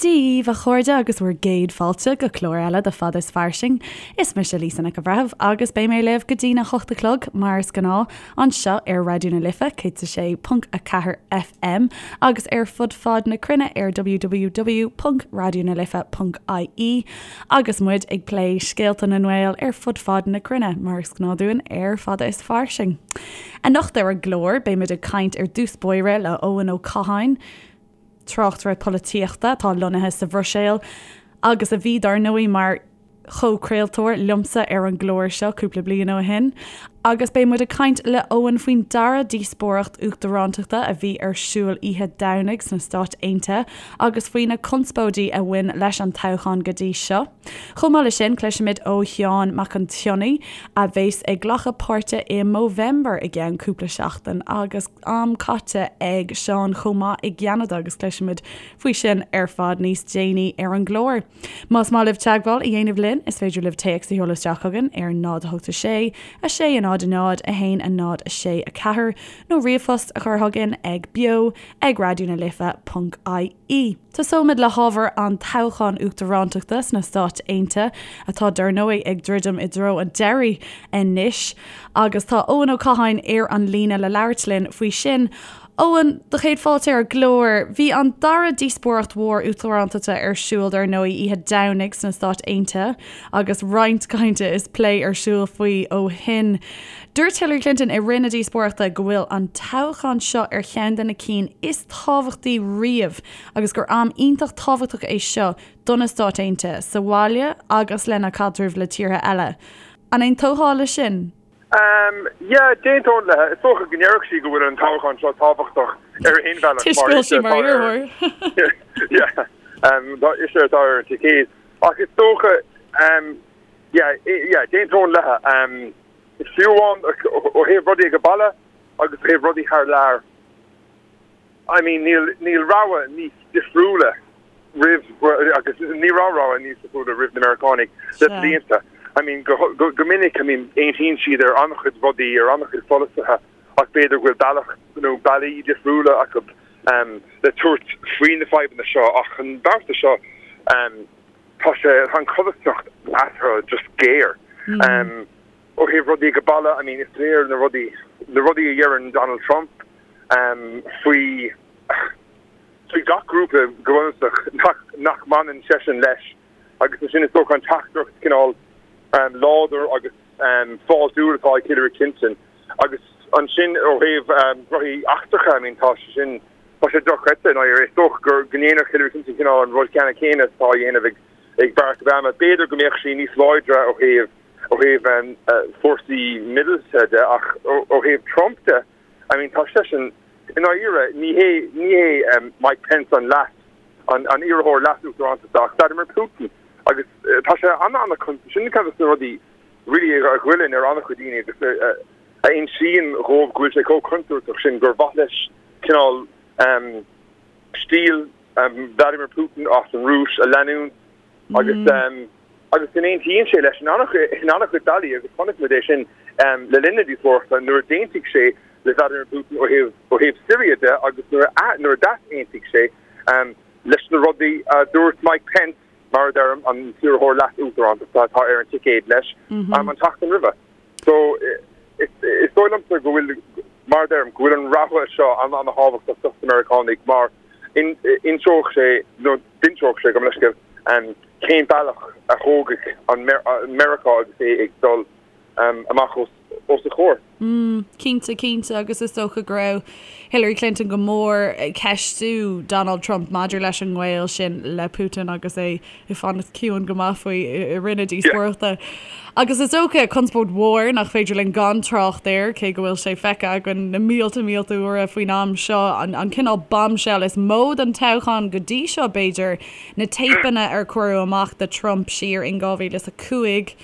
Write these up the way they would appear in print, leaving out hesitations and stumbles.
Dia daoibh, a chairde, agus bhur gcéad fáilte go clár eile de Fada is Fairsing. Is mise Lisa Nic an Bhreithimh agus beidh mé libh go dtína hocht a chlog, mar is gnáth, anseo ar Raidió na Life 106.4 FM agus ar fud fad na cruinne ar www.raidionalife.ie agus muid ag plé scéalta na nGael ar fud fad na cruinne, mar is gnáth dúinn ar Fada is Fairsing. Anocht ar an gclár, beimid ag caint ar dtús báire le Eoin Ó Catháin, tráchtaire polaitíochta atá lonnaithe sa Bhruiséil agus a bhí, dar ndóigh, mar chomhchraoltóir liomsa ar an gclár seo cúpla bliain ó shin. Agus beidh muid ag caint le Eoin faoin dara díospóireacht uachtarántachta a bhí ar siúl oíche Domhnaigh sna Stáit Aontaithe agus faoi na conspóidí a bhain leis an toghchán go dtí seo. Chomh maith leis sin, cloisfimid ó Sheán Mac an tSionnaigh, a bheas ag glacadh páirte i Movember i gceann cúpla seachtain agus am caite ag Seán chomh maith i gCeanada agus cloisfimid faoi sin ar fad níos déanaí ar an gclár. Más maith libh teagmháil a dhéanamh linn, is féidir libh téacs a sheoladh isteach chugainn ar 0 8 6 6 0 0 1 0 6 4 nó ríomhphost a chur chugainn ag beo ag raidionalife.ie. Tosóimid le hábhar an toghcháin uachtarántachta sna Stáit Aontaithe, atá dar ndóigh ag druidim i dtreo an deiridh anois, agus tá Eoin Ó Catháin ar an líne le labhairt linn faoi sin. Eoin, do chéad fáilte ar an gclár. Bhí an dara díospóireacht mhór uachtarántachta ar siúl dar ndóigh oíche Domhnaigh sna Stáit Aontaithe agus roinnt cainte is plé ar siúl faoi ó shin. Dúirt Hillary Clinton i rith na díospóireachta go bhfuil an toghchán seo ar cheann de na cinn is tábhachtaí riamh agus gur am iontach tábhachtach é seo do na Stáit Aontaithe, sa bhaile agus lena caidreamh le tíortha eile. An aontófá leis sin? Yeah, d'aontóinn léi. Is dócha go ndéarfadh sí go bhfuil an toghchán seo tábhachtach ar aon bhealach mar Toisc go bhfuil sí mar iarrthóir. Yeah, ise atá ar an ticéad. Ach is dócha, yeah, yeah, d'aontóinn léi. Fiú amháin ó thaobh rudaí ag baile agus ó thaobh rudaí thar lear, I mean níl, níl rogha níos difriúla roimh, agus ní raibh rogha níos difriúla roimh na Meiriceánaigh le blianta. I mean go, go, go minic, I mean aontaíonn siad ar an-chuid rudaí, ar an-chuid pholasaithe ach b'fhéidir go bhfuil bealach nó bealaí difriúla acu le tabhairt faoi na fadhbanna seo ach an babhta seo tá sé, tá an chodarsnacht eatarthu just géar. Ó thaobh rudaí ag baile, I mean is léir na rudaí, na rudaí a dheireann Donald Trump faoi, faoi gach grúpa go bunúsach nach, nach mbaineann seisean leis agus ansin is dócha an teachtaireacht cineál láidir agus fáiltiúil atá ag Hillary Clinton agus ansin ó thaobh rudaí eachtracha, I mean tá sé sin, tá sé dochreidte i ndáiríre. Is dócha go ndéanfadh Hillary Clinton cineál an rud ceannann céanna atá á dhéanamh ag ag Barack Obama. B'fhéidir go mbeadh sí níos láidre ó thaobh ó thaobh fórsaí míleata de ach ó thaobh Trump de, I mean tá seisean i ndáiríre ní hé ní hé Mike Pence an leas an an iarrthóir leas-uachtarántachta ach Vladimir Putin agus tá sé an-an sin ceann de na rudaí really a ghoilleann ar an-chuid daoine agus a insíonn dhóibh go bhfuil sé chomh contúirteach sin gur mhaith leis cineál stíl Vladimir Putin as an Rúis a leanúint agus agus go n-aontaíonn sé leis in an-chuid bealaí agus chonaic muid é sin le linn na díospóireachta nuair a d'aontaigh sé le Vladimir Putin ó thaobh ó thaobh Syria de agus nuair a nuair a d'easaontaigh sé leis na rudaí a dúirt Mike Pence, mar a deirim, an t-iarrthóir leas-uachtarántachta atá ar an ticéad leis an tseachtain roimhe. So is dóigh liomsa go bhfuil, mar a deirim, go bhfuil an rogha seo an-an-thábhachtach dos na Meiriceánaigh mar inseoidh sé, nó d'inseodh sé, gabh mo leithscéal, cén bealach a thógfaidh an Meiriceá agus é ag dul amach os a chomhair. Mm, cinnte, cinnte, agus is dócha go raibh Hillary Clinton go mór ag ceistiú Donald Trump maidir leis an ngaol sin le Putin agus é ag fanacht ciúin go maith faoi i rith na díospóireachta. Agus is dócha conspóid mhór nach féidir linn gan trácht air, cé go bhfuil sé feicthe againn na mílte mílte uaire faoin am seo, an cineál bombshell is mó den toghchán go dtí seo, b'fhéidir, na téipeanna ar cuireadh amach de Trump siar in 2005.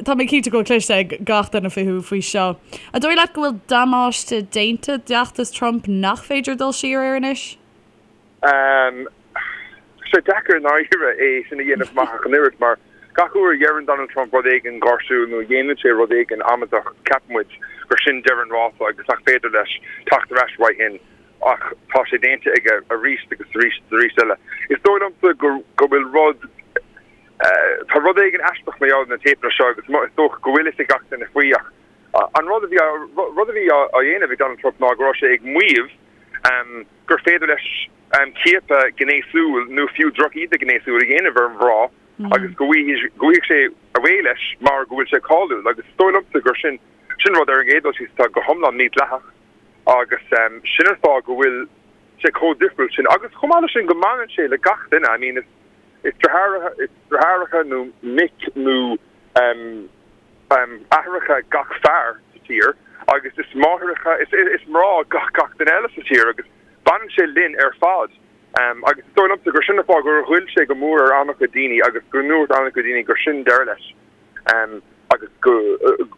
Tá mé cinnte go bhfuil cloiste ag gach duine fúthu faoi seo. An dóigh leat go bhfuil damáiste déanta d'fheachtas Trump nach féidir dul siar air anois? Tá sé deacair i ndáiríre é sin a dhéanamh amach ach an oiread mar gach uair a dheireann Donald Trump rud éigin gáirsiúil nó a dhéanann sé rud éigin amaideach ceapann muid gur sin deireadh an rása agus nach féidir leis teacht ar ais uaidh sin. Ach tá sé déanta aige arís agus arís agus arís eile. Is dóigh liomsa go go bhfuil rud, tá rud éigin aisteach mar gheall ar na téipeanna seo agus is dócha go bhfuil fhios ag gach duine faoi ach an rud a bhí rud a bhí á dhéanamh ag Donald Trump ná go raibh sé ag maíomh gur féidir leis ciapadh gnéasúil nó fiú drochíde gnéasúil a dhéanamh ar mhná agus go bhfaighidh sé away leis mar go bhfuil sé cáiliúil agus is dóigh liomsa gur sin sin rud ar an gcéad dul síos atá go hiomlán mídhleathach agus sin an fáth go bhfuil sé chomh difriúil sin agus chomh maith leis sin go mbaineann sé le gach duine I mean is is deartháireacha nó mic nó aithreacha gach fear sa tír agus is máithreacha is is mná gach gach duine eile sa tír agus baineann sé linn ar fad. Agus is dóigh liomsa gur sin an fáth gur ghoill sé go mór ar an-chuid daoine agus go ndúirt an-chuid daoine gur sin deireadh leis agus go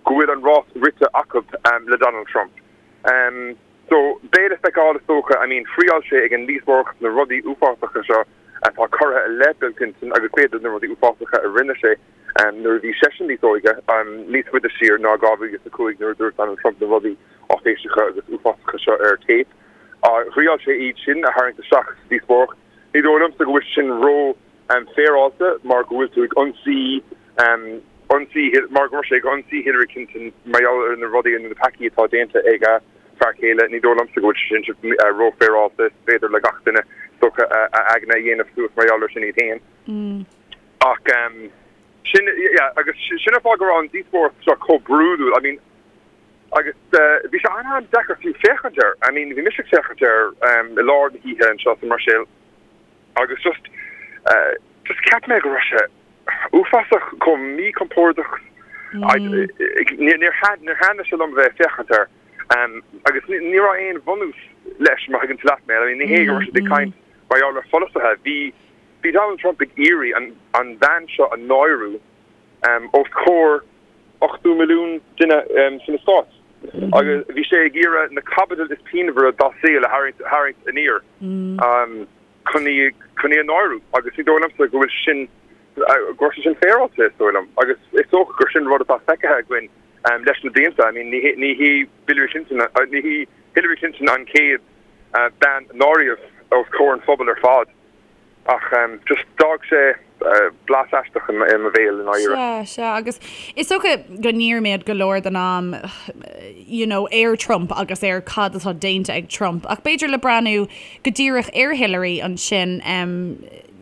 bhfuil an rás rite acu le Donald Trump. So, beidh le feiceáil is dócha, I mean, thriáil sé ag an díospóireacht na rudaí uafásacha seo atá curtha i leith Bill Clinton agus b'fhéidir na rudaí uafásacha a rinne sé nuair a bhí seisean níos óige, níos faide siar ná 2005 nuair a dúirt Donald Trump na rudaí áiféiseacha agus uafásacha seo ar téip. Thriáil sé iad sin a tharraingt isteach sa díospóireacht. Ní dóigh liomsa go bhfuil sé sin ró féaráilte mar go bhfuil tú ag ionsaí ionsaí mar go raibh sé ag ionsaí Hillary Clinton mar gheall ar na rudaí nó na peacaí atá déanta ag a fear céile. Ní dóigh liomsa go bhfuil sé sin ró-fhéaráilte. Is féidir le gach duine is dócha a aigne a dhéanamh suas mar gheall ar sin iad féin. Ach sin, yeah, agus sin an fáth go raibh an díospóireacht seo chomh brúidiúil. I mean, Agus bhí sé an-an-deacair fiú féachaint air. I mean, bhí mise ag féachaint air i lár na hoíche anseo sa mBruiséil agus just, just cheap mé go raibh sé uafásach, chomh míchompordach. Níor thaitnigh sé liom a bheith ag féachaint air. Agus ní raibh aon bhunús leis, má thuigeann tú leat mé. I mean, ní hé go raibh siad ag caint mar gheall ar pholasaithe. Bhí, bhí Donald Trump ag iarraidh an, an bhean seo a náiriú os comhair 80 milliún duine sna Stáit agus bhí sé ag iarraidh na caibidil is pianmhaire dá saol a tharraingt aniar chun í chun í a náiriú agus ní dóigh liomsa go bhfuil sin go raibh sé sin féaráilte is dóigh liom agus is dócha gur sin rud atá feicthe againn leis na blianta. I mean ní ní hí Hillary Clinton ní hí Hillary Clinton an chéad bean a náiríodh os comhair an phobail ar fad. Ach just d'fhág sé blas aisteach i mo bhéal i ndáiríre. Sea, sea, agus is dócha go ndírímid go leor den am you know ar Trump agus ar cad atá déanta ag Trump ach b'fhéidir le breathnú go díreach ar Hillary ansin,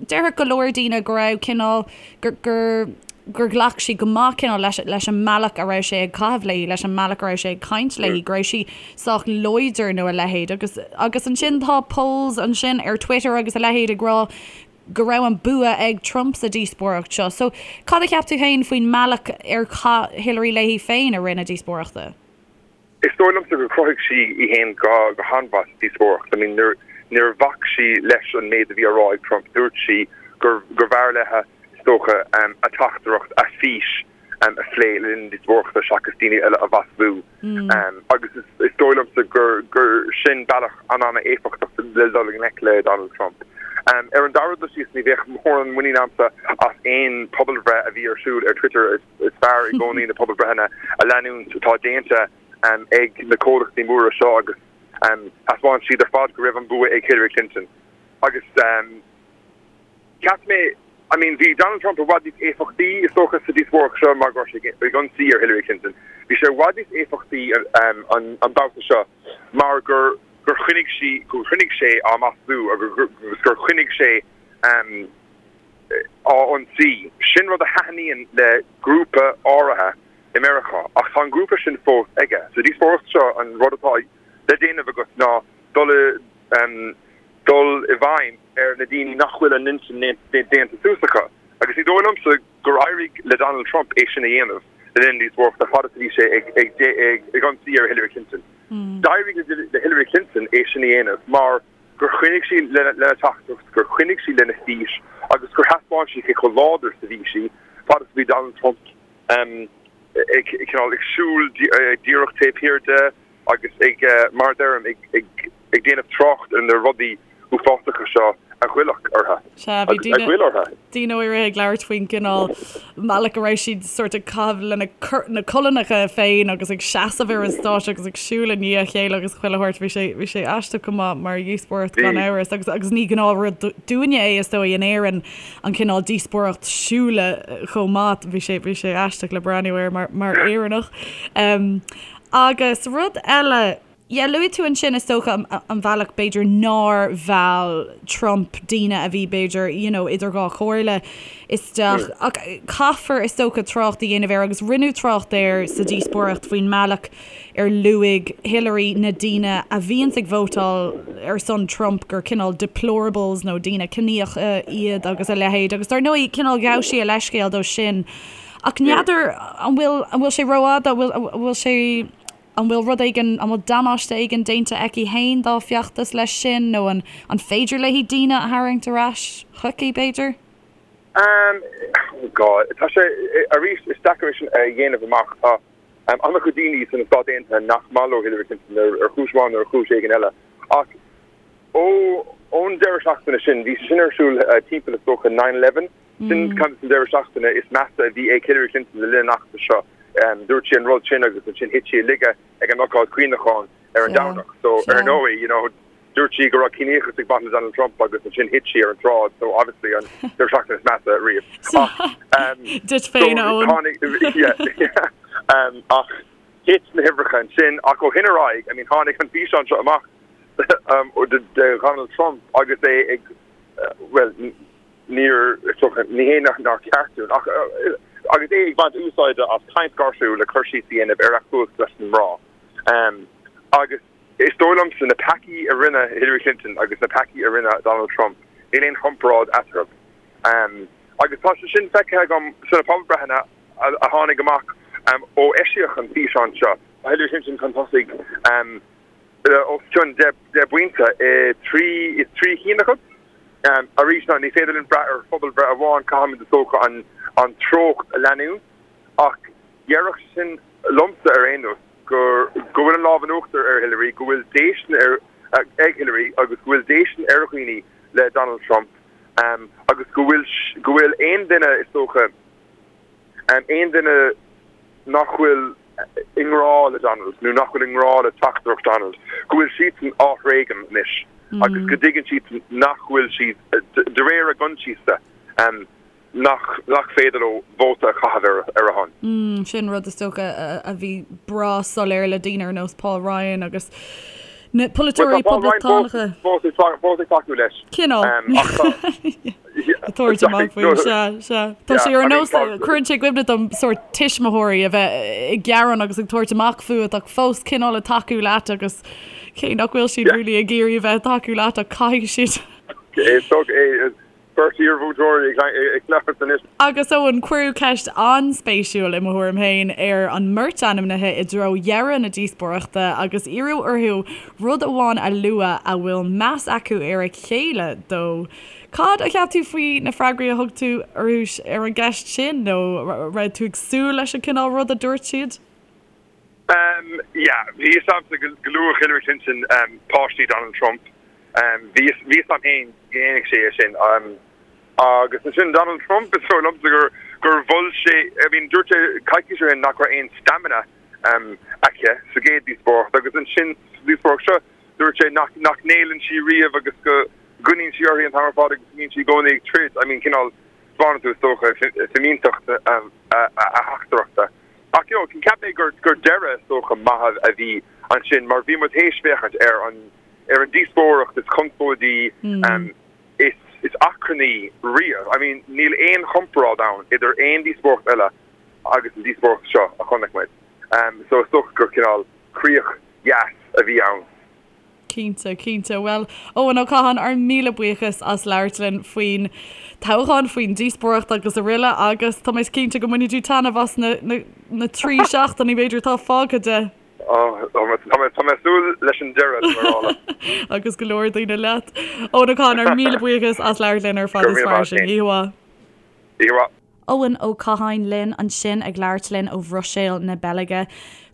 déarfadh go leor daoine go raibh cineál, gur, gur, gur ghlac sí go maith cineál leis, leis an mbealach a raibh sé ag caitheamh léi, leis an mbealach a raibh sé ag caint léi, go raibh sí sách láidir nó a leithéid. Agus, agus ansin tá polls ansin ar Twitter agus a leithéid ag rá go raibh an bua ag Trump sa díospóireacht seo. So, cad a cheap tú féin faoin mbealach ar chaith Hillary léi féin i rith na díospóireachta? Is dóigh liomsa gur chruthaigh sí í fhéin go han-mhaith sa díospóireacht. I mean, níor, níor bhac sí leis an méid a bhí á rá ag Trump. Dúirt sí gur, gurbh fhearr léi, is dócha, a teachtaireacht, a fís a phlé le linn na díospóireachta seachas daoine eile a mhaslú. Agus is, is dóigh liomsa gur, gur sin bealach an-an-éifeachtach le dul i ngleic le Donald Trump. Ar an dara dul síos, ní bheadh mórán muinín agamsa as aon pobalbhreith a bhí ar siúl ar Twitter. Is fearr i gcónaí na pobalbhreitheanna a leanúint atá déanta ag na comhlachtaí móra seo agus thaispeáin siad ar fad go raibh an bua ag Hillary Clinton. Agus cheap mé, I mean, bhí Donald Trump i bhfad níos éifeachtaí, is dócha, sa díospóireacht seo mar go raibh sé ag ionsaí ar Hillary Clinton. Bhí sé i bhfad níos éifeachtaí an babhta seo mar gur gur choinnigh sí, gur choinnigh sé á maslú agus gur choinnigh sé á ionsaí. Sin rud a thaitníonn le grúpa áirithe i Meiriceá, ach tá an grúpa sin fós aige. Sa díospóireacht seo, an rud atá le déanamh agat ná dul i dul i bhfeidhm ar na daoine nach bhfuil a n-intinn déanta suas acu. Agus ní dóigh liomsa gur éirigh le Donald Trump é sin a dhéanamh le linn na díospóireachta fad is a bhí sé ag ionsaí ar Hillary Clinton. D'éirigh le Hillary Clinton é sin a dhéanamh mar gur choinnigh sí lena teachtaireacht, gur choinnigh sí lena fís agus gur thaispeáin sí cé chomh láidir is a bhí sí fad is a bhí Donald Trump ag cineál ag siúl díreach taobh thiar de agus ag, mar a deirim, ag déanamh trácht ar na rudaí uafásacha seo A ghoillfeadh orthu. Sea, bhí daoine, a ghoill orthu. daoine áirithe ag labhairt faoin gcineál mbealach a raibh siad sórt ag caitheamh lena na colainneacha féin agus ag seasamh ar an stáitse agus ag siúl i ndiaidh a chéile agus chuile shórt. Bhí sé, bhí sé aisteach go maith mar dhíospóireacht gan amhras agus, agus ní gnáthrud dúinne é is dóigh in Éirinn an cineál díospóireacht siúil chomh maith. Bhí sé, bhí sé aisteach le breathnú air mar, mar Éireannach. Agus rud eile. Yeah, luaigh tú ansin is dócha an bealach b'fhéidir nár mheall Trump daoine a bhí b'fhéidir you know idir dhá chomhairle isteach ach caithfear is dócha trácht a dhéanamh air agus rinneadh trácht air sa díospóireacht faoin mbealach ar luaigh Hillary na daoine a bhíonns ag vótáil ar son Trump gur cineál deplorables nó daoine ciníocha iad agus a leithéid agus dar ndóigh cineál ghabh sí a leithscéal dó sin ach n'fheadar an bhfuil an bhfuil sé rófhada an bhfuil an bhfuil sé An bhfuil rud éigin, an bhfuil damáiste éigin déanta aici fhéin dá feachtas leis sin nó an an féidir léi daoine a tharraingt ar ais chuici, b'fhéidir? Um, oh God, tá sé, arís, is deacair é sin a dhéanamh amach. Tá an-chuid daoine sna Stáit Aontaithe nach maith leo Hillary Clinton ar chúis amháin nó ar chúis éigin eile. Ach ó ón deireadh seachtaine sin, bhí sé sin ar siúl timpeall is dócha 9/11, Sin ceann de na deireadh seachtaine is measa a bhí ag Hillary Clinton le linn an fheachtais seo. Dúirt sí an rud sin agus ansin thit sí i laige ag an ócáid cuimhneacháin ar an Domhnach. So, ar ndóigh, you know, dúirt sí go raibh ciníochas ag baint le Donald Trump agus ansin thit sí ar an tsráid. So, obviously, an deireadh seachtaine is measa riamh. Ach, Duit féin, Eoin. Tháinig, yeah, yeah. Ach thit na huimhreacha ansin. Ach ó shin ar aghaidh, I mean, tháinig an físeán seo amach de Dhonald Trump agus é ag, well, Níor, ní hé nár cheart dúinn, ach agus é ag baint úsáide as caint gáirsiúil le cur síos a dhéanamh ar a chumhacht leis na mná. Agus is dóigh liomsa, na peacaí a rinne Hillary Clinton agus na peacaí a rinne Donald Trump, níl aon chomparáid eatarthu. Agus tá sé sin feicthe agam sna pobalbhreitheanna a tháinig amach ó eisíodh an físeán seo. Tá Hillary Clinton chun tosaigh. os cionn 10 bpointe i dtrí i dtrí chinn acu. Arís, ní féidir linn brath ar phobalbhreith amháin, caithfimid is dócha an an treocht a leanúint ach déarfadh sin liomsa ar aon nós gur go bhfuil an lámh in uachtar ar Hillary, go bhfuil déistin ar ag Hillary agus go bhfuil déistin ar dhaoine le Donald Trump agus go bhfuil go bhfuil aon duine is dócha Aon duine nach bhfuil i ngrá le Donald nó nach bhfuil i ngrá le teachtaireacht Donald, go bhfuil siadsan á thréigean anois agus go dtuigeann siad nach bhfuil siad, de réir a gcoinsiasa, nach nach féidir leo vóta a chaitheamh ar a shon. Sin rud is dócha a bhí breá soiléir le daoine ar nós Paul Ryan agus na polaiteoirí poblachtánacha. Fós ag tacú leis. Cineál. Ag tabhairt amach faoi, sea, sea. Tá sé ar nós, cuireann sé i gcuimhne dom sórt tuismitheoirí a bheith ag gearán agus ag tabhairt amach fút ach fós cineál ag tacú leat agus cé nach bhfuil siad really ag iarraidh a bheith ag tacú leat ach caithfidh siad. Is dócha é. Beirt iarmhúinteoirí ag labhairt anois. Agus Eoin, cuireadh ceist an-spéisiúil, i mo thuairim féin, ar an mbeirt ainmnithe i dtreo dheireadh na díospóireachta agus iarradh orthu rud amháin a lua a bhfuil meas acu ar a chéile dó. Cad a cheap tú faoi na freagraí a thug tú orthu ar an gceist sin nó raibh tú ag súil leis an cineál rud a dúirt siad? Um yeah, bhí fhios a'msa go go luafadh Hillary Clinton um páistí Donald Trump. Um bhí fhios bhí fhios a'm féin go ndéanfadh sé é sin. Um agus ansin Donald Trump is dóigh liomsa gur gur mhol sé I mean dúirt sé coicís ó shin nach raibh aon stamina um aici sa gcéad díospóireacht agus ansin sa díospóireacht seo dúirt sé nach nach ngéilleann sí riamh agus go gcoinníonn sí uirthi an t-am ar fad agus go mbíonn sí i gcónaí ag troid. I mean cineál spáineann tú is dócha fimínteacht a a a theachtaireachta. Ach you know, cheap mé gur gur deireadh is dócha maith a bhí ansin mar bhí muid théis féachaint ar an ar an díospóireacht is conspóidí is is achrannaí riamh. I mean níl aon chomparáid ann idir aon díospóireacht eile agus an díospóireacht seo a chonaic muid. So is dócha gur cineál críoch dheas a bhí ann. Cinnte, cinnte. Bhuel, Eoin Ó Catháin, ár míle buíochas as labhairt linn faoin toghchán, faoin díospóireacht agus araile agus tá mé cinnte go mbainfidh tú taitneamh as na, na, na 3 seachtainí b'fhéidir atá fágtha de. Oh, tá mé, tá mé, tá mé ag súil leis an deireadh, tá mé ag rá leat. Agus go leor daoine leat. Eoin Ó Catháin, ár míle buíochas as labhairt linn ar Fada is Fairsing. Oíche mhaith. Oíche mhaith. Eoin Ó Catháin linn ansin ag labhairt linn ó Bhruiséil na Beilge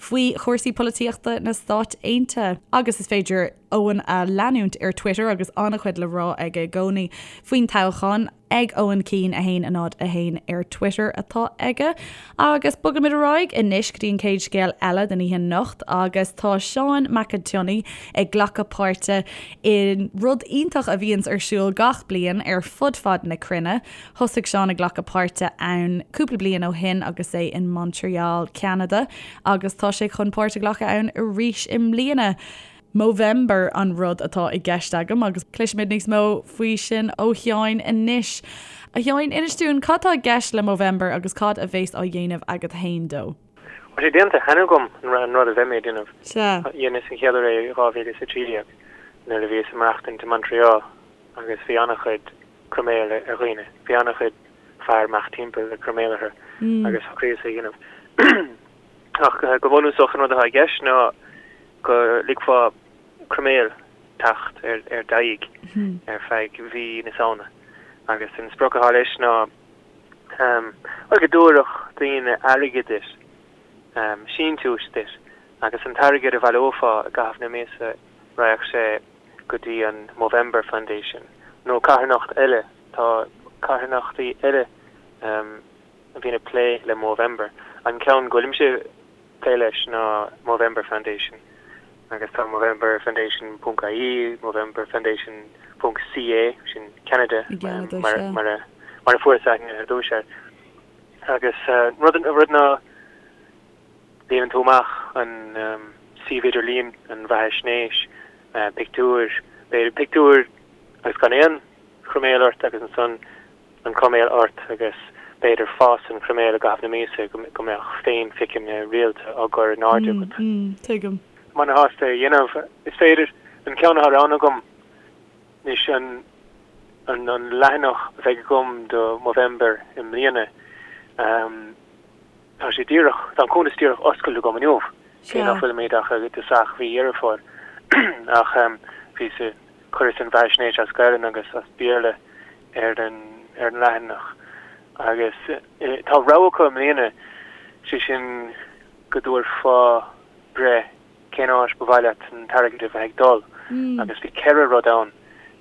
faoi chúrsaí polaitíochta na Stát Aontaithe. Agus is féidir. Eoin a leanúint ar Twitter agus an-chuid le rá aige i gcónaí faoin toghchán. Ag Eoin Keane 1 0 1 ar Twitter atá aige. Agus bogaimid ar aghaidh anois go dtí an chéad scéal eile den oíche anocht agus tá Seán Mac an tSionnaigh ag glacadh páirte i rud iontach a bhíonns ar siúl gach bliain ar fud fad na cruinne. Thosaigh Seán ag glacadh páirte ann cúpla bliain ó shin agus é in Montreal, Ceanada agus tá sé chun páirt a ghlacadh ann arís i mbliana. Movember an rud atá i gceist agam agus cloisfimid níos mó faoi sin ó Sheáin anois. A Sheáin, inis dúinn cad tá i gceist le Movember agus cad a bhéas á dhéanamh agat fhéin dó? Tá sé déanta cheana agam an rud a bheidh mé ag déanamh. Sea. Dheineas an chéad uair é i 2013 nuair a bhíos ag maireachtaint i Montreal agus bhí an-chuid croiméal ar dhaoine. Bhí an-chuid fear amach timpeall le croiméal orthu agus shocraíos é a dhéanamh. Ach go bunúsach an rud atá i gceist ná go ligfeá croiméal teacht ar d'aghaidh ar feadh mhí na Samhna. Agus an sprioc atá leis ná bhuel go dtabharfadh daoine airgead duit, síntiúis duit, agus an t-airgead a bhaileofá i gcaitheamh na míosa raghadh sé go dtí an Movember Foundation nó carthanacht eile, tá carthanachtaí eile a bhíonn ag plé le Movember. An ceann go bhfuilimse ag plé leis ná Movember Foundation agus tá Movember Foundation ponc ie, Movember Foundation ponc ca, sin Ceanada mar a fuaireas aithne ar dtús air. Agus rud rud ná líonann tú amach an suíomh idirlíon, an bheathaisnéis, pictiúir, b'fhéidir pictiúir agus gan aon chroiméal ort agus ansan an croiméal ort agus b'fhéidir fás an chroiméil i gcaitheamh na míosa go mbeadh féinphiceanna rialta á gcur in airde agat. Tuigim. Ana-shásta é a dhéanamh. Is féidir, an ceann atá roghnaithe agam anois, an an leathanach a bheidh agam do Movember i mbliana, tá sé díreach, tá an cuntas díreach oscailte agam inniu, cé nach bhfuilimid ach i dtosach mhí Dheireadh Fómhair. Ach bhíos ag chuireas an bheathaisnéis as Gaelainn agus as Béarla ar an ar an leathanach agus tá rogha acu i mbliana, sé sin go dtabharfá breith cén áit ba mhaith leat an t-airgead a bheith ag dul agus bhí ceithre rud ann,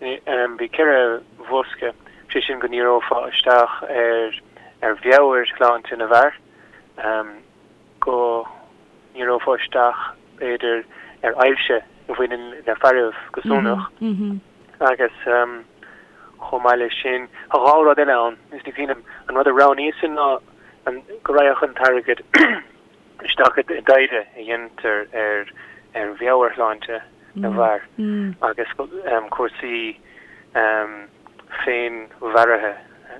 bhí ceithre bhosca, sé sin go ndíreofá isteach ar ar mheabhairshláinte na bhfear, go ndíreofá isteach b'fhéidir ar ailse a bhaineann le fearaibh go sonrach agus chomh maith leis sin tá dhá rud eile ann is ní cuimhin liom an rud a roghnaíos ná an go raghadh an t-airgead isteach i dtaighde a dhéantar ar ar mheabhairshláinte na bhfear agus cúrsaí féinmharaithe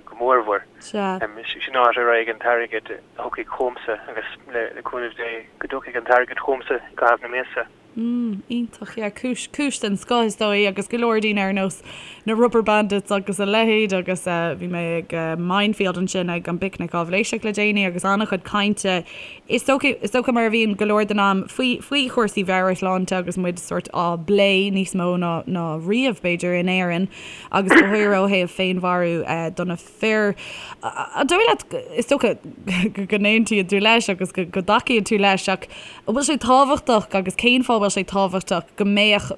go mórmhór. Sin áit a raghaidh an t-airgead a thiocfaidh chugamsa agus le cúnamh Dé go dtiocfaidh an t-airgead chugamsa i gcaitheamh na míosa. Mm, iontach, yeah, cúis, cúis den scoth is dóigh agus go leor daoine ar nós na Rubberbandits agus a leithéid agus eh, bhí mé ag eh, Mindfield ansin ag an bPicnic Áibhléiseach le déanaí agus an-chuid cainte is dócha, is dócha mar a bhíonn go leor den am faoi, faoi chúrsaí mheabhairshláinte agus muid sórt á bplé níos mó ná, ná riamh b'fhéidir in Éirinn agus go háirithe ó thaobh féinmharú eh, do na fir. An dóigh leat, is dócha go n-aontaíonn tú leis agus go dtacaíonn tú leis, ach an bhfuil sé tábhachtach agus cén fáth a bhfuil sé tábhachtach go mbeadh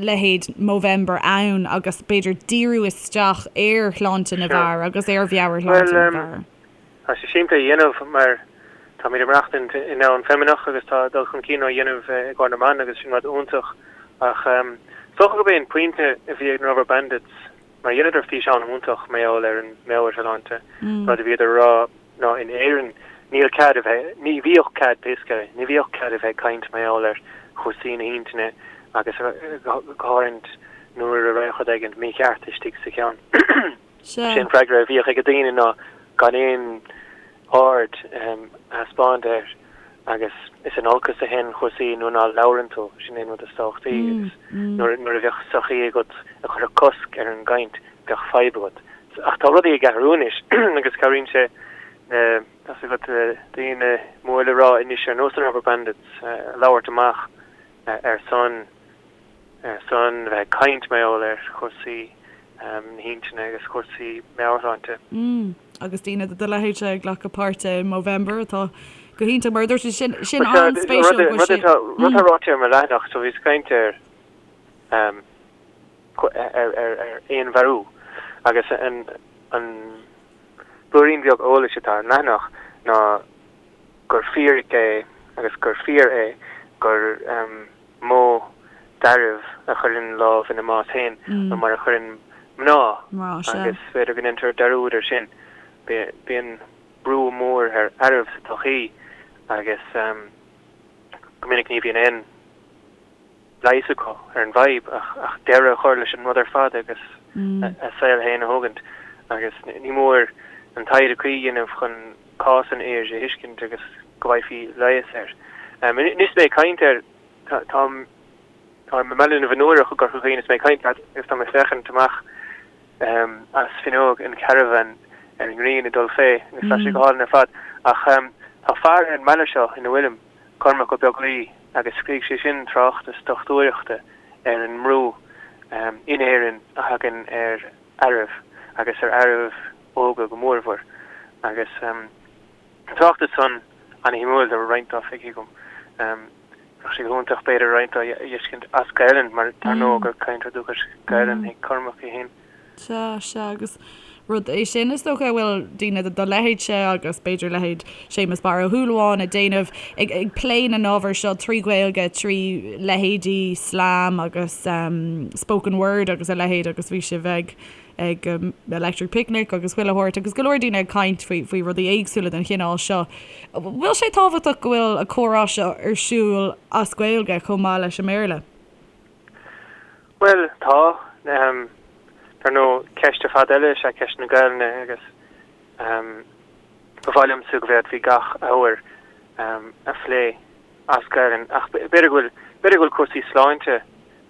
leithéid Movember ann agus b'fhéidir díriú isteach ar shláinte na bhfear agus ar mheabhairshláinte na bhfear? Tá sé simplí a dhéanamh mar táimid ag maireachtaint i ndomhan feimineach agus tá dul chun cinn á dhéanamh i gcomhair na mban agus sin rud iontach ach is dócha gurb é an pointe a bhí ag na Rubberbandits Mar dheineadar físeán iontach mar gheall ar an meabhairshláinte, rud a bhíodar a rá ná in Éirinn níl cead a bheith, ní bhíodh cead pé scéal é, ní bhíodh cead a bheith ag caint mar gheall ar chúrsaí na hintinne agus go háirithe nuair a raibh rud éigin mícheart istigh sa cheann. Sé an freagra a bhíodh ag daoine ná gan aon aird a thaispeáint air agus is in olcas a théann cúrsaí nuair ná labhrann tú, sin é an rud is tábhachtaí agus nuair a bheadh sochaí agat a chuirfeadh cosc ar an gcaint, bheadh fadhb agat. Ach tá rudaí ag athrú anois agus cabhraíonn sé na, tá's agat, daoine mór le rá anois ar nós na Rubberbandits a labhairt amach ar son ar son bheith ag caint mar gheall ar chúrsaí na hintinne agus cúrsaí meabhairshláinte. Mm, agus daoine de do leithéidse ag glacadh páirte i Movember atá go hiontach mar a dúirt tú, sin, sin an-spéisiúil go bhfuil sé. Rud atá ráite ar mo leathanach, so bhíos ag caint ar. ar fhéinmharú agus an blúirín beag eolais atá ar an leathanach ná gur fíric é agus gur fíor é gur mó d'fhearaibh a chuireann lámh ina mbás féin ná mar a chuireann mná agus b'fhéidir go ndéantar dearúd air sin. Bíonn brú mór ar fhearaibh sa tsochaí agus go minic ní bhíonn aon leigheas acu ar an bhfadhb ach deireadh a chur leis an rud ar fad agus a saol féin a thógaint agus ní mór an taighde cuí a dhéanamh chun cás an fhir a thuiscint agus go bhfaighfí leigheas air. Anois is mé ag caint air, táim i mBaile na bhFionnúrach i gCorca Dhuibhne is mé ag caint leat agus tá mé ag féachaint amach as fuinneog an charavan ar an ngrian ag dul fé agus tá sé go hálainn ar fad ach tá fear ar an mbaile seo ina bhfuilim, Cormac Ó Beaglaoi, agus scrígh sé sin tráchtas dochtúireachta ar an mbrú in Éirinn a thagann ar fhearaibh agus ar fhearaibh óga go mórmhór. Agus an tráchtas san ana-shuimiúil, tá roinnt dó feicthe agam. Bheadh sé go hiontach b'fhéidir roinnt dó a fheiscint as Gaelainn mar dar ndóigh gur cainteoir dúchais Gaelainn é Cormac é féin. Sea, sea, agus rud é sin is dócha a bhfuil daoine de do leithéidse agus b'fhéidir leithéid Séamus Barra Ó Súilleabháin ag déanamh, ag plé na n-ábhar seo trí Ghaeilge, trí leithéidí slam agus spoken word agus a leithéid agus bhí sibh ag ag Electric Picnic agus chuile shórt agus go leor daoine ag caint faoi faoi rudaí éagsúla den chineál seo. Bhfuil sé tábhachtach go bhfuil an comhrá seo ar siúl as Gaeilge chomh maith leis an mBéarla? Bhuel, tá. Dar ndóigh, ceist ar fad eile is ea ceist na Gaelainne agus ba mhaith liomsa go bhféadfaí gach ábhar a phlé as Gaelainn ach b'fhéidir go bhfuil, b'fhéidir go bhfuil cúrsaí sláinte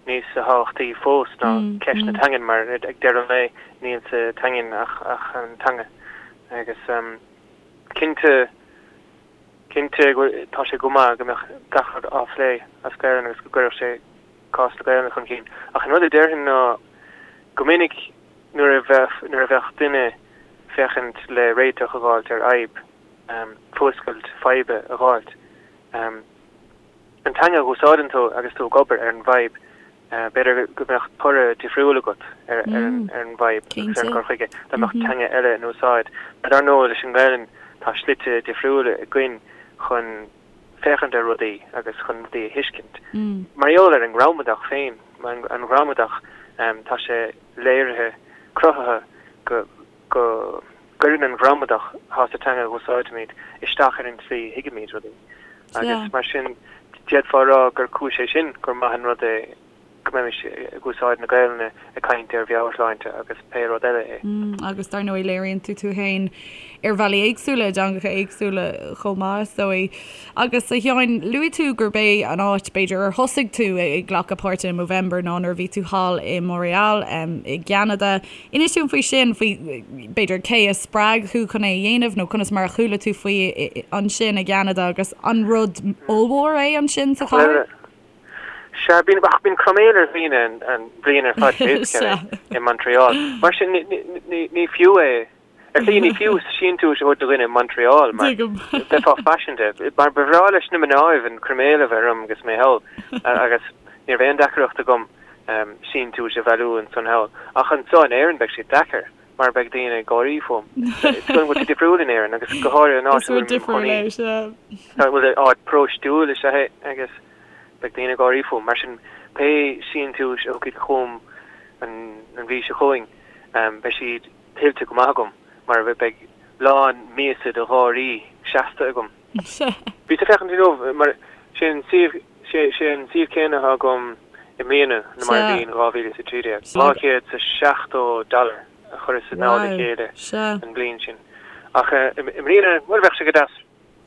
níos tábhachtaí fós ná ceist na teangan mar ag deireadh an lae níl sa teangain ach an teanga agus cinnte, cinnte tá sé go maith go mbeadh gach rud á phlé as Gaelainn agus go gcuirfeadh sé cás na Gaelainne chun cinn. Ach an rud a déarfainn ná go minic nuair a bheadh, nuair a bheadh duine féachaint le réiteach a dh'fháilt ar fhadhb, fuascailt faidhbe a dh'fháilt, an teanga a dh'úsáideann tú agus tú ag obair ar an bhfadhb, b'fhéidir go mbeadh toradh difriúil agat ar an bhfadhb agus ar an gcur chuige dá mbeadh teanga eile in úsáid. Mar dar ndóigh leis an nGaelainn tá slite difriúla againn chun féachaint ar rudaí agus chun rudaí a thuiscint. Mar gheall ar an ngramadach féin, an ghramadach, tá sé léirithe, cruthaithe go go gcuireann an ghramadach atá sa teanga a úsáidimid isteach ar an tslí a thuigimid rudaí. Agus mar sin, d'fhéadfá a rá gur cúis é sin gur maith an rud é go mbeimis ag úsáid na Gaelainne ag caint ar mheabhairshláinte agus pé rud eile é. Agus dar ndóigh léiríonn tú tú féin ar bhealaí éagsúla, i dteangacha éagsúla chomh maith, is dóigh. Agus a Sheáin, luaigh tú gurb é an áit, b'fhéidir, ar thosaigh tú ag glacadh páirte i Movember ná nuair a bhí tú thall i Montréal i gCeanada. Inis dúinn faoi sin, faoi, b'fhéidir, cé a spreag thú chun é a dhéanamh nó conas mar a chuala tú faoi ansin i gCeanada agus an rud ollmhór é ansin sa chathair? Sea, bíonn, ach bíonn croiméal ar dhaoine an bhliain ar fad basically i Montreal. Mar sin, ní fiú é, ar shlí ní fiú síntiúis a thabhairt do dhuine i Montreal mar bheifeá faiseanta. Mar ba bhreá leis na mnáibh an croiméal a bheith orm agus mé thall agus ní raibh aon deacaireacht agam síntiúis a bhailiú ansan thall. Ach anso in Éirinn beidh sé deacair mar beidh daoine ag gáirí fúm. Is go bhfuil sé difriúil in Éirinn agus go háirithe an áit a bhfuil mé i mo chónaí. Bhuel, áit paróistiúil is ea é agus Beidh daoine ag gáirí fúm. Mar sin, pé síntiúis a thiocfaidh chugam an mhí seo chugainn, beidh siad tuillte go maith agam, mar beidh lán míosa de gháirí seasta agam. Bhíos ag féachaint inniu, mar sé an suíomh, sé an suíomh céanna atá agam i mbliana ná mar a bhí in 2013. 270 dollar a chuireas i dtoll a chéile an bhliain sin. Ach i mbliana, bhuel, bheadh sé go deas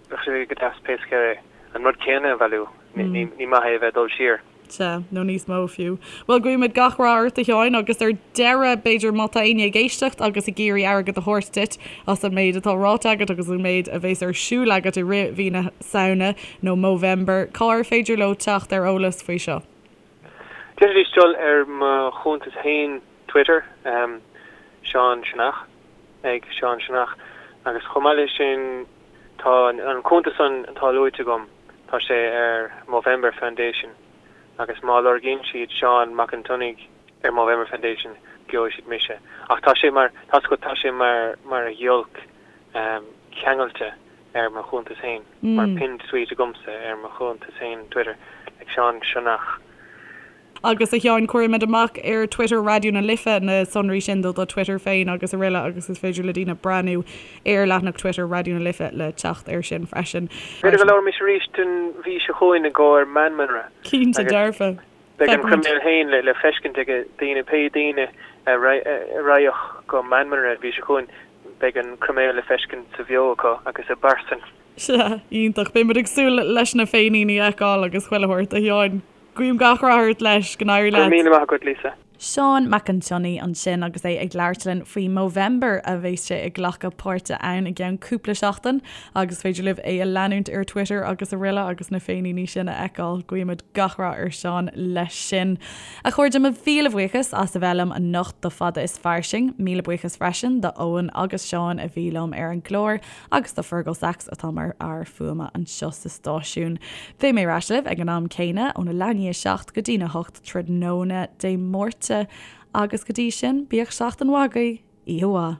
Bheadh sé go deas pé scéal é an rud céanna a bhailiú. Ní maith é a bheith ag dul siar. Sea, nó níos mó fiú. Bhuel, guímid gach rath ort, a Sheáin, agus ar deireadh, b'fhéidir, má tá éinne ag éisteacht agus ag iarraidh airgead a thabhairt duit as an méid atá ráite agat agus an méid a bheas ar siúl agat i rith mhí na Samhna, nó Movember, cá ar féidir leo teacht ar eolas faoi seo? D'fhéadfaidís dul ar mo chuntas féin Twitter, Seán Sionnach. ag Seán Sionnach agus chomh maith leis sin tá an cuntas san atá luaite agam, tá sé ar Movember Foundation. Agus má lorgaíonn siad Seán Mac an tSionnaigh ar Movember Foundation, gheobhaidh siad mise. Ach tá sé mar, tá's agat, tá sé mar, mar ghiolc ceangailte ar mo chuntas féin, mar pinned tweet agamsa ar mo chuntas féin Twitter, like Seán Sionnach. Agus a Sheáin, cuirfimid amach ar Twitter Raidió na Life na sonraí sin do do Twitter féin agus araile agus is féidir le daoine breathnú ar leathanach Twitter Raidió na Life le teacht air sin freisin. B'fhéidir go labhróimis arís an mhí seo chugainn i gcomhair Meanmanra. Cinnte dearfa. Beidh an croiméal féin le feiscint ag daoine, pé daoine a raghadh go Meanmanra an mhí seo chugainn, beidh an croiméal le feiscint sa bheo acu agus i bpearsain. Sea, iontach. Beidh muid ag súil leis na féiníní a fheiceáil agus chuile shórt, a Sheáin. Guím gach rath ort leis, go n-éirí leat. Go raibh míle maith agat, Lisa. Seán Mac an tSionnaigh ansin agus é ag labhairt linn faoi Movember a bheas sé ag glacadh páirte ann i gceann cúpla seachtain agus is féidir libh é a leanúint ar Twitter agus araile agus na féiníní sin a fheiceáil. Guímid gach rath ar Seán leis sin. A chairde, mo mhíle bhuíochas as a bheith liom anocht do Fada is Fairsing. Míle buíochas freisin do Eoin agus Seán a bhí liom ar an gclár. agus do Fergal Sachs atá mar fhear fuaime anseo sa stáisiún. Beidh mé ar ais libh ag an am céanna, óna leath i ndiaidh a 7 go dtína 8 tráthnóna Dé Máirt, agus go dtí sin, bíodh seachtain mhaith agaibh, oíche mhaith.